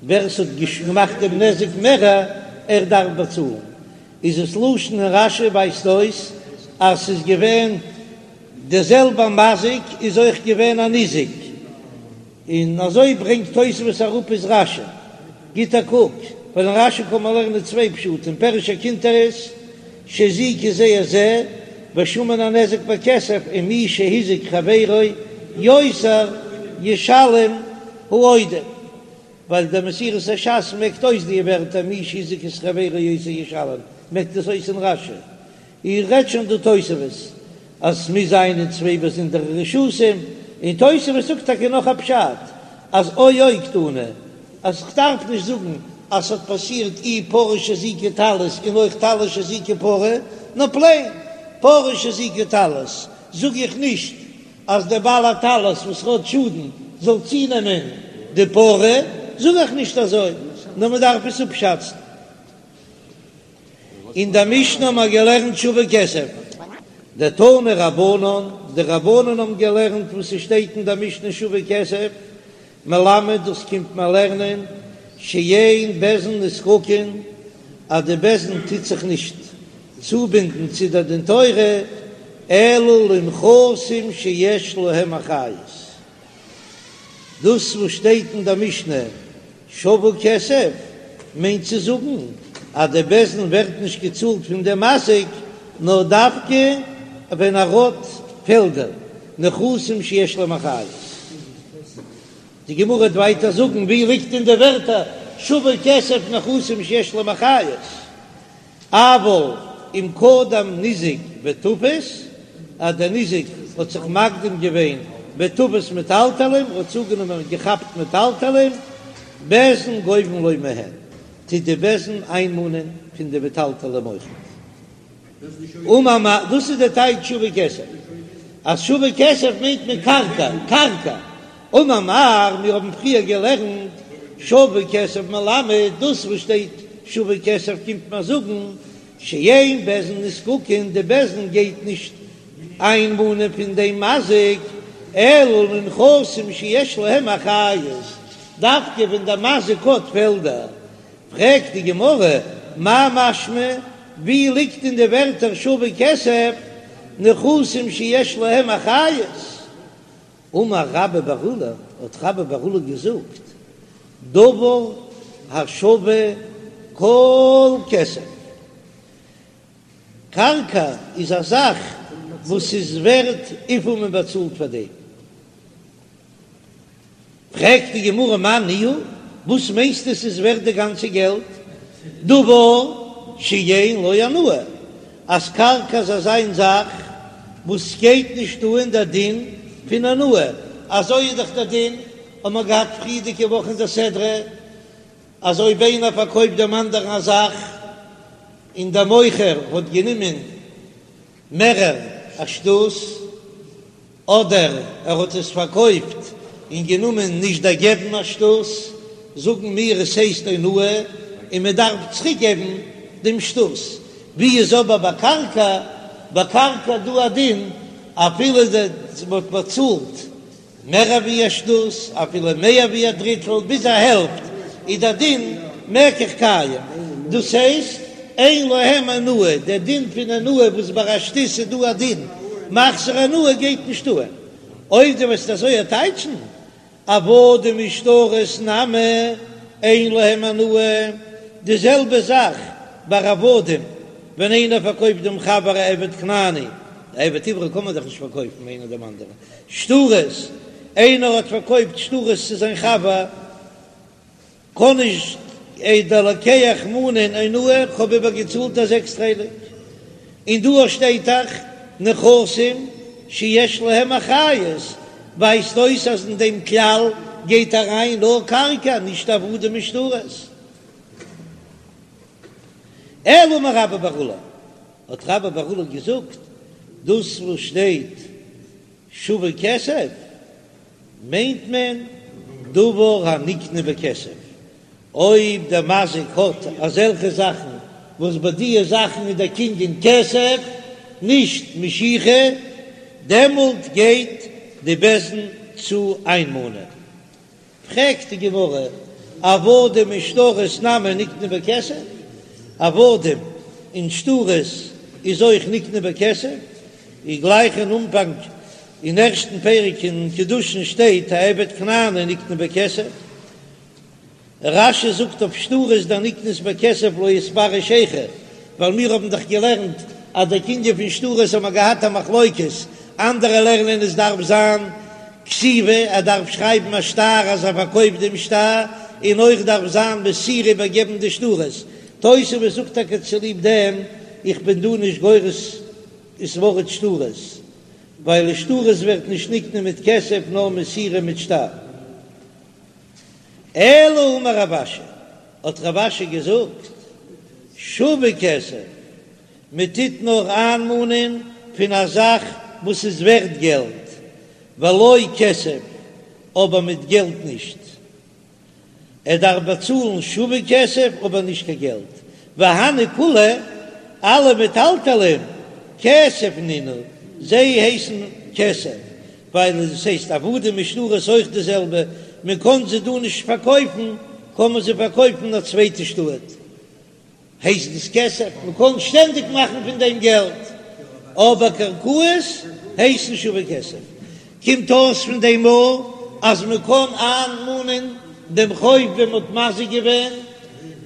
ווער ס'האט געמאכט דעם נזק מערער, ער דארף באצאלן. איז עס לשון אין רש"י ווייזט אויס אז ס'איז געווען דער זעלבער מזיק איז אויך געווען א ניזק. און אזוי ברענגט תוספות אראפ איז רש"י, גיט א קוק, ווייל אין רש"י קען מען לערנען צוויי פשטים, פירוש הקונטרס, שהזיקו זה את זה, ושמין הנזק בכסף, ומי שהזיק חברו יותר ישלם העודף, ווייל דער מסורת הש"ס מעקט אויס די ווערטער מי שהזיק את חברו יותר ישלם, מעקט עס אויס אין רש"י. איר רעדט שוין דא תוספות אז ס'מוז זיין אין צוויי באזונדערע רשותים, און תוספות זאגט טאקע נאך א פשט אז או או קתני, אז כ'דארף נישט זאגן אז ס'האט פאסירט אי פרה שהזיקה טלית און אויך טלית שהזיקה פרה, נאר פלעין פרה שהזיקה טלית זאג איך נישט אז דער בעל הטלית וואס האט שאדן זאל צונעמען די פרה, זאג איך נישט אזוי, נאר מ'דארף עס אפשאצן. אין דער משנה האבן מיר געלערנט שווה כסף, דתנו רבנן, די רבנן האבן געלערנט וואס ס'שטייט אין דער משנה שווה כסף, מלמד דאס קומט מען לערנען שאין בית דין נזקקין, אז די בית דין טוט זיך נישט צובינדן צו דער דין תורה. אלא לנכסים שיש להם אחריות, דאס וואס שטייט אין דער משנה שווה כסף מיינט צו זאגן אז די בית דין ווערט נישט געצאלט פון דעם מזיק נאר דווקא ווען ער האט פעלדער, נכסים שיש להם אחריות. די גמרא וועט ווייטער זאגן ווי ליגט אין די ווערטער שווה כסף נכסים שיש להם אחריות. אבל אם קדם ניזק ותפס, אז דער ניזק האט זיך מקדים געווען ותפס מטלטלין, האט צוגענומען געכאפט מטלטלין, בית דין גובין לו מהן, טוט די בית דין איינמאנען פון די מטלטלין אויכעט. אמר מר, דאס איז די טייטש שווה כסף, אז שווה כסף מיינט מען קרקע, קרקע. אמר מר, מיר האבן פריער געלערנט שווה כסף מלמד, דאס וואס שטייט שווה כסף קומט מיר זאגן שאין בית דין נזקקין, די בית דין גייט נישט איינמאנען פון דעם מזיק, אלא לנכסים שיש להם אחריות, דווקא ווען דער מזיק האט פעלדער. פרעגט די גמרא, מאי משמע, ווי ליגט אין די ווערטער שווה כסף נכסים שיש להם אחריות? אמר רבה בר עולא, האט רבה בר עולא געזאגט, דבר השווה כל כסף, קרקע איז א זאך וואס איז ווערט וויפיל מען באצאלט פאר דעם. פרעגט די גמרא מאי ניהו, וואס מיינסטו ס'איז ווערט די גאנצע געלט? דבר שאין לו אונאה, אז קרקע איז אזא זאך וואס גייט נישט אן דער דין פון אונאה, אזוי איז דאך דער דין, האבן מיר געהאט פריערדיגע וואך אין דער סדרה, אז אויב איינער פארקויפט דעם אנדערן א זאך און דער מוכר האט גענומען מערער א שתות, אדער ער האט עס פארקויפט און גענומען נישט דערגעבן א שתות, זאגן מיר עס הייסט אונאה און מען דארף צוריק געבן דעם שתות. ווי איז אבער ביי קרקע? ביי קרקע איז דא א דין אפילו מען האט באצאלט מער ווי א שתות, אפילו מער ווי א דריטל, ביז א העלפט, איז דער דין מקח קיים, דאס הייסט אין להם אונאה, דער דין פון אונאה וואס ביי א שתות איז דא א דין מחזיר אונאה גייט נישט אן, אויב דו וועסט אזוי טייטשן עבדים ושטרות נמי אין להם אונאה, די זעלבע זאך ביי עבדים, ווען איינער פארקויפט דעם חבר א עבד כנעני, א עבד עברי קען מען דאך נישט פארקויפן איינער דעם אנדערן, שטרות, איינער האט פארקויפט שטרות צו זיין חבר, קען נישט דער לוקח מאנען אונאה, כ'האב איבער געצאלט א זעקסט חלק, און דא שטייט דאך נכסים שיש להם אחריות, ווייזט אויס אז אין דעם כלל גייט אריין נאר קרקע, נישט עבדים און שטרות. אלא אמר רבה בר עולא, האט רבה בר עולא געזאגט, דאס וואס שטייט שווה כסף מיינט מען דבר הנקנה בכסף, אויב דער מזיק האט אזעלכע זאכן וואס ביי דיע זאכן איז דער קנין כסף נישט משיכה, דעמאלט גייט די בית דין צו איינמאנען. פרעגט די גמרא, עבדים ושטרות נמי נקנו בכסף? עבדים און שטרות איז אויך נקנו בכסף? איז גלייך אין אנפאנג אין ערשטן פרק אין קידושין שטייט העבד כנעני נקנה בכסף. רש"י זאגט אויף שטרות דנקנית בכסף לא איתפרש היכא, ווייל מיר האבן דאך געלערנט אז דער קנין פון שטרות האבן מיר געהאט א מחלוקת, אנדערע לערנען עס דארף זיין כתיבה, ער דארף שרייבן א שטר אז ער פארקויפט דעם שטר, און אויך דארף זיין מסירה איבערגעבן די שטרות. תוספות זאגט טאקע צוליב דעם איך בין דא נישט גורס ס'ווארט שטרות, ווייל שטרות ווערט נישט נקנה מיט כסף נאר מסירה מיט שטר. אלא אמר רב אשי, האט רב אשי געזאגט, שווה כסף, מען טוט נאר איינמאנען פון א זאך וואס איז ווערט געלט, ולא כסף, אבער מיט געלט נישט. ער דארף באצאלן שווה כסף אבער נישט קיין געלט, והני כולהו, אלע מטלטלין, כסף נינהו, זיי הייסן כסף, ווייל עס הייסט עבדים ושטרות אויך די זעלבע, מען קען זיי דא נישט פארקויפן, קען מען זיי פארקויפן אין א צווייטע שטאט, הייסט עס כסף, מען קען שטענדיג מאכן פון דעם געלט. אבער קרקעות הייסן שווה כסף. קומט אויס פון דעם מאל אז מען קען איינמאנען דעם חוב ווען מען האט מזיק געווען,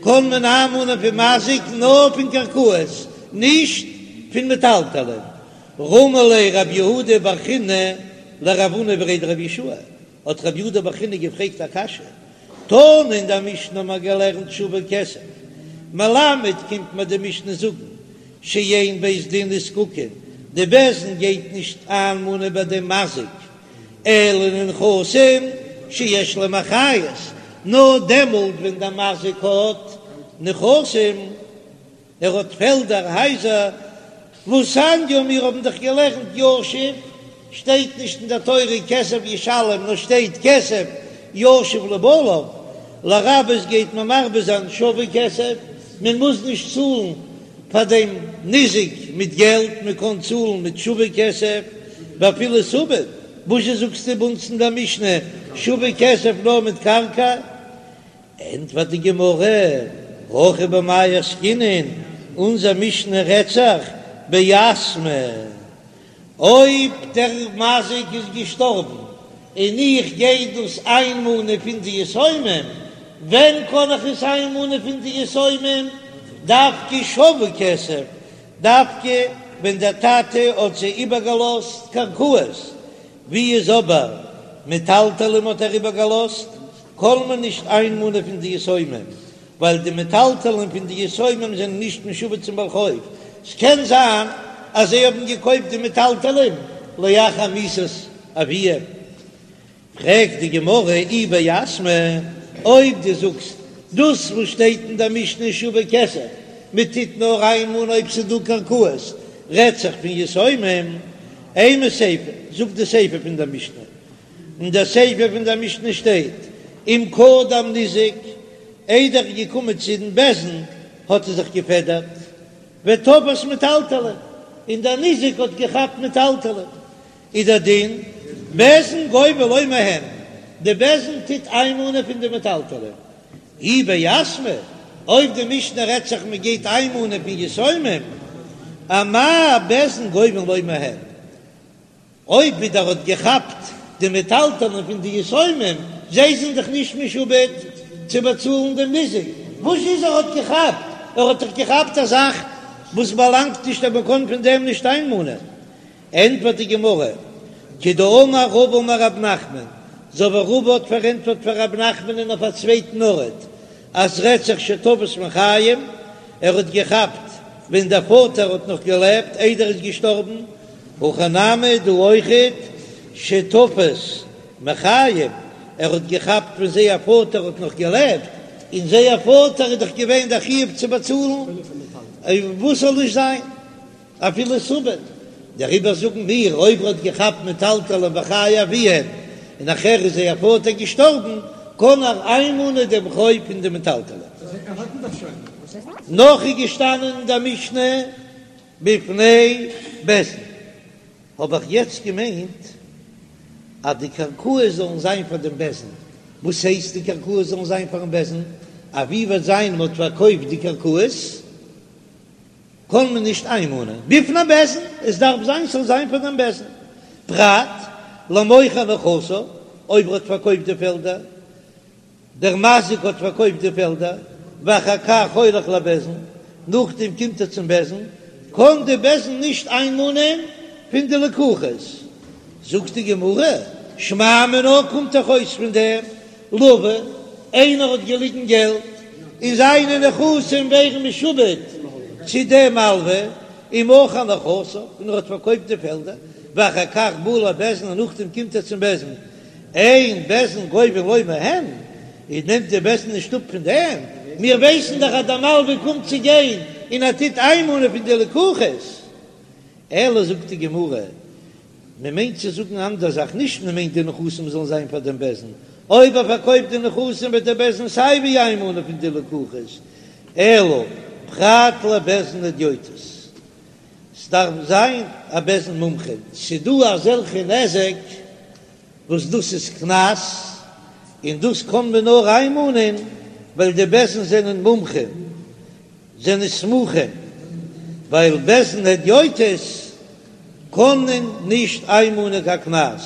קען מען איינמאנען פון מזיק נאר פון קרקעות, נישט פון מטלטלין. רמי ליה רב יהודה בר חינא לרב הונא בריה דרב יהושע, האט רב יהודה בר חינא געפרעגט א קשיא, תנא אין דער משנה האט מען געלערנט שווה כסף, מלמד קומט מיר די משנה זאגן שאין בית דין נזקקין, די בית דין גייט נישט איינמאנען ביי דעם מזיק, אלא לנכסים שיש להם אחריות, נאר דעמאלט ווען דער מזיק האט נכסים. ער האט פעלדער, הייזער, והתניא, מיר האבן דאך געלערנט ישיב, שטייט נישט אין דער תורה כסף ישלם, נאר שטייט כסף ישיב לבעליו, לרבות גייט מען מרבה זיין שווה כסף, מען מוז נישט צאלן פאר דעם ניזק מיט געלט, מען קען צאלן מיט שווה כסף, ואפילו סובין, וואזשע זאגסטו ביי אונז אין דער משנה שווה כסף נאר מיט קרקע? ענטפערט די גמרא, הכא במאי עסקינן, אונזער משנה רעדט זיך ביתמי, אויב דער מזיק איז געשטארבן און איך גיי דאס איינמאנען פון די יתומים, ווען קען איך עס איינמאנען פון די יתומים? דווקא שווה כסף, דווקא ווען דער טאטע האט זיי איבערגעלאזט קרקעות, ווי איז אבער מטלטלים האט ער איבערגעלאזט, קען מען נישט איינמאנען פון די יתומים, ווייל די מטלטלין פון די יתומים זענען נישט משועבד צום בעל חוב, ס'קען זיין אז זיי האבן געקויפט די מטלטלין לאחר מיתת אביהם. פרעגט די גמרא אי ביתמי, אויב דו זאגסט דאס וואס שטייט אין דער משנה שווה כסף, מען טוט נאר איינמאנען אויב ס'איז דא קרקעות, רעדט זיך פון יתומים, אימא סיפא, זאג די סיפא פון דער משנה, אין דער סיפא פון דער משנה שטייט, אם קדם ניזק, איידער ער איז געקומען צו דעם בית דין האט ער זיך געפעדערט, ותפס מטלטלין, און דער ניזק האט געכאפט מטלטלין, איז דער דין, בית דין גובה לו מהן, די בית דין טוט איינמאנען פון די מטלטלין. אי ביתמי, אויב די משנה רעדט זיך מען גייט איינמאנען פון יתומים, אמאי בית דין גובין לו מהן? אויב ווידער האט געכאפט די מטלטלין פון די יתומים, זיי זענען דאך נישט משועבד צו באצאלן דעם ניזק, וואס איז ער האט געכאפט? ער האט דאך געכאפט א זאך וואס באלאנגט נישט אז מען קען פון דעם נישט איינמאנען. ענטפערט די גמרא, כדאמר רבא אמר רב נחמן, אזוי ווי רבא האט פארענטפערט פאר רב נחמנ'ן אויף א צווייטן ארט, אז ס'רעדט זיך שתפס מחיים, ער האט געכאפט ווען דער פאטער האט נאך געלעבט איידער ער איז געשטארבן, הכא נמי דא אויכעט שתפס מחיים, ער האט געכאפט ווען זייער פאטער האט נאך געלעבט, און זייער פאטער איז דאך געווען דער חיוב צו באצאלן, וואס זאל נישט זיין אפילו סובין, דעריבער זאגן מיר אויב ער האט געכאפט מטלטלין בחיי אביהם און נאכער איז זייער פאטער געשטארבן, קען ער איינמאנען דעם חוב פון די מטלטלין. נאך איז געשטאנען אין דער משנה בפני בית דין, האב איך יעצט געמיינט אז די קרקעות זאלן זיין פאר דעם בית דין, וואס הייסט די קרקעות זאלן זיין פארן בית דין? אז ווי וועט זיין מען האט פארקויפט די קרקעות קען מען נישט איינמאנען בפני בית דין, עס דארף זיין ס'זאל זיין פאר דעם בית דין, פרט למוכר נכסיו, אויב ער האט פארקויפט די פעלדער. דער מזיק האט פארקויפט די פעלדער, ואחר כך הולך לבית דין, נאכדעם קומט ער צום בית דין, קען די בית דין נישט איינמאנען פון די לקוחות. זאגט די גמרא, שמע מינה קומט דאך אויס פון דעם לוה, איינער האט געליגן געלט און זיינע נכסים ווערן משועבד צו דעם מלווה, ומכר נכסיו, און ער האט פארקויפט די פעלדער, ואחר כך בא לבית דין און נאכדעם קומט ער צום בית דין, אין בית דין גובין לו מהן, איז נעמט די בית דין נישט אפ פון דעם, מיר ווייסן דאך אז דער מלווה קומט צו גיין און ער טוט איינמאנען פון די לקוחות, אלא זאגט די גמרא, מען מיינט צו זאגן אנדער זאך, נישט מען מיינט די נכסים זאלן זיין פאר דעם בית דין, אויב ער פארקויפט די נכסים וועט דער בית דין סיי ווי איינמאנען פון די לקוחות, אלא פרט לבית דין הדיוטות, ס'דארף זיין א בית דין מומחה, ס'דא אזעלכע נזק וואס דאס איז קנס, און דאס קען מען נאר איינמאנען ווייל די בית דין זענען מומחים, זענען סמוכים, ווייל בית דין הדיוטות. קען מען נישט איינמאנען קיין קנס,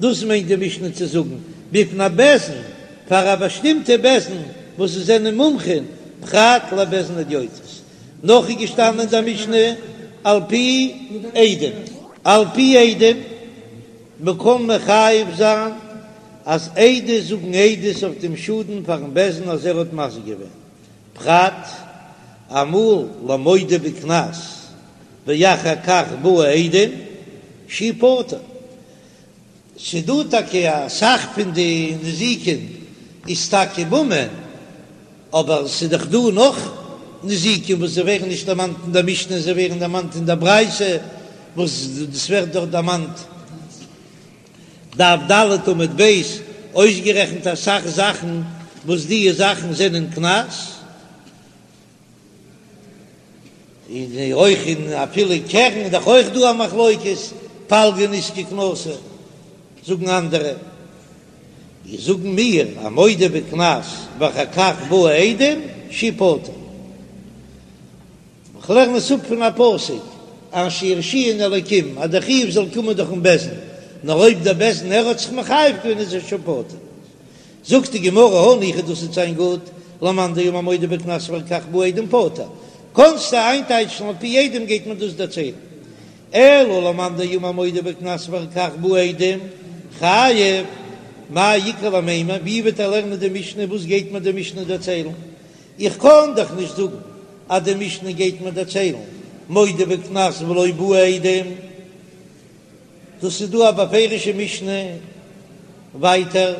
דאס מיינט די משנה צו זאגן בפני בית דין, פאר א באשטימטע בית דין וואס זיי זענען מומחים, פרט לבית דין הדיוטות. נאך איז געשטאנען אין די משנה על פי עדים, על פי עדים, מען קען מחייב זיין אז עדות זאגן עדות אויף דעם שאדן פארן בית דין אז ער האט מזיק געווען, פרט אמאל למודה בקנס ואחר כך באו עדים שהוא פטור. ס'דא טאקע אסאך פון די נזיקין איז טאקע ממון, אבער ס'איז דאך דא נאך נזיקין וואס זיי ווערן נישט דערמאנט אין דער משנה, זיי ווערן דערמאנט אין דער ברייתא, וואס דאס ווערט דארט דערמאנט דף ד' עמוד ב', אויסגערעכנט אסאך זאכן וואס די זאכן זענען קנס. און אויך אין אפילו קרן איז דאך אויך דא א מחלוקת, פלגא נזקא קנסא זאגן אנדערע, איז זאגן מיר א מודה בקנס ואחר כך באו עדים שהוא פטור. כ'לערן עס אפ פון א פסוק, אשר ירשיען אלקים, אז דער חיוב זאל קומען דורכן בית דין, נאר אויב דער בית דין ער האט זיך מחייב געווען איז ער שוין פטור. זאגט די גמרא הניחא דאס וועט זיין גוט, למאן דאמר מודה בקנס ואחר כך באו עדים פטור, קאנסטו איינטייטשן על פי עדים גייט מען דאס דערציילן, אלא למאן דאמר מודה בקנס ואחר כך באו עדים חייב, מאי איכא למימר, ווי וועט ער לערנען די משנה, וואס גייט מען די משנה דערציילן, איך קען דאך נישט זאגן אז די משנה גייט מיר דערציילן מודה בקנס ולא באו עדים. דאס איז דא א בפירושע משנה ווייטער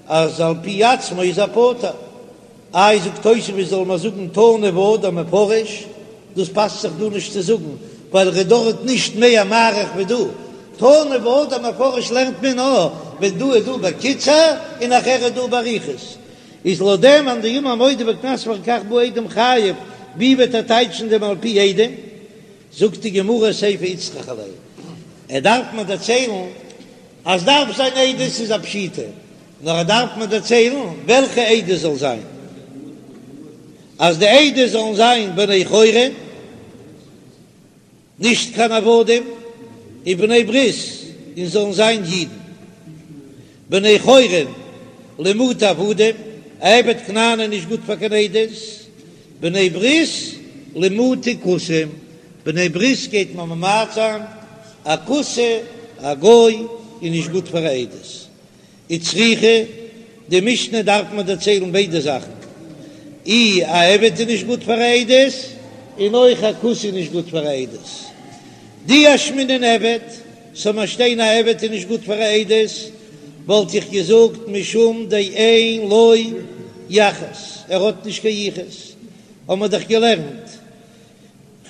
אז על פי עצמו איז ער פטור. איי זאגט תוספות זאל מען זאגן תנא והדר מפרש, דאס פאסט זיך דא נישט צו זאגן ווייל ער איז דארט נישט מער מאריך ווי דא, תנא והדר מפרש לערנט מען נאר ווען דא איז דא בקיצור און נאכער איז דא באריכות, איז לויט דעם מאן דאמר מודה בקנס ואחר כך באו עדים חייב, ווי וועט ער טייטשן דעם על פי עדים? זאגט די גמרא סיפא איצטריכא ליה, ער דארף מיר דערציילן אז דארף זיין עדות איז א פשיטא, נאר ער דארף מיר דערציילן וועלכע עדות זאל זיין, אז די עדות זאלן זיין בני חורין, נישט קיין עבדים, און בני ברית, און זאלן זיין אידן. בני חורין למעוטי עבדים, א עבד כנעני איז נישט גוט פאר קיין עדות, בני ברית למעוטי כותים, בני ברית גייט מען ממעט זיין, א כותי, א גוי, איז נישט גוט פאר א עדות. וצריכא, די משנה דארף מען דערציילן ביידע זאכן, אי א עבד איז נישט גוט פאר א עדות, און אויך א כותי איז נישט גוט פאר א עדות. דאי אשמעינן עבד, ס'זאל מיר שטיין א עבד איז נישט גוט פאר א עדות, וואלט איך געזאגט משום דאין לו יחוס, ער האט נישט קיין יחוס, האמער דאך געלערנט,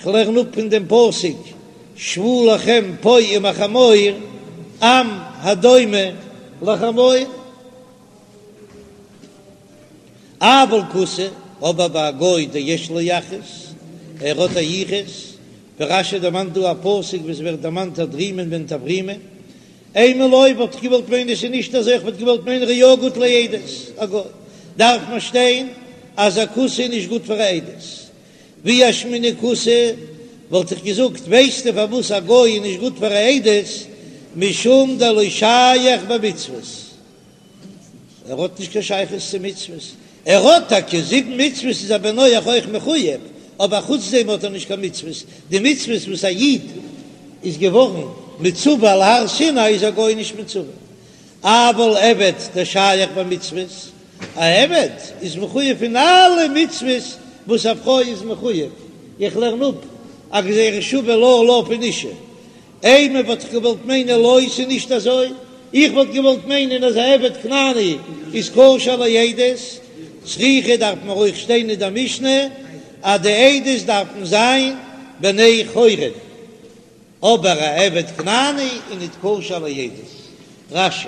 כ'לערן אפ פון דעם פסוק שבו לכם פה עם החמור, עם הדומה לחמור. אבל כותי, אבער ביי א גוי דיש לו יחוס, ער האט א יחוס, ווי רש"י דערמאנט דא א פסוק וואס ווערט דערמאנט הדרימון בן טברימון, אימא לא וואלט איך געוואלט מיינען עס איז נישט אזוי איך וואלט געוואלט מיינען ער איז יא גוט לעדות, א גוי דארף מען שטיין אז א כותי איז נישט גוט פאר א עדות, ואי אשמעינן כותי וואלט איך געזאגט ווייסטו פארוואס א גוי איז נישט גוט פאר א עדות משום דלא שייך במצוות. ער האט נישט קיין שייכות צו מצוות, ער האט טאקע זיבן מצוות איז א בן נח אויך מחוייב, אבער חוץ דעם האט ער נישט קיין מצוות, די מצוות וואס א איד איז געווארן מצווה על הר סיני איז א גוי נישט מצווה, אבל עבד דשייך במצוות, א עבד איז מחוייב פון אלע מצוות וואס א פרוי איז מחוייב, איך לערן אפ א גזירה שווה לה לה פון אשה. אימא וואלט איך געוואלט מיינען לא ס'איז נישט אזוי, איך וואלט געוואלט מיינען אז א עבד כנעני איז כשר לעדות, צריכא דארף מען אויך שטיין אין דער משנה אז די עדות דארפן זיין בני חורין, אבער א עבד כנעני איז ניט כשר לעדות. רש"י.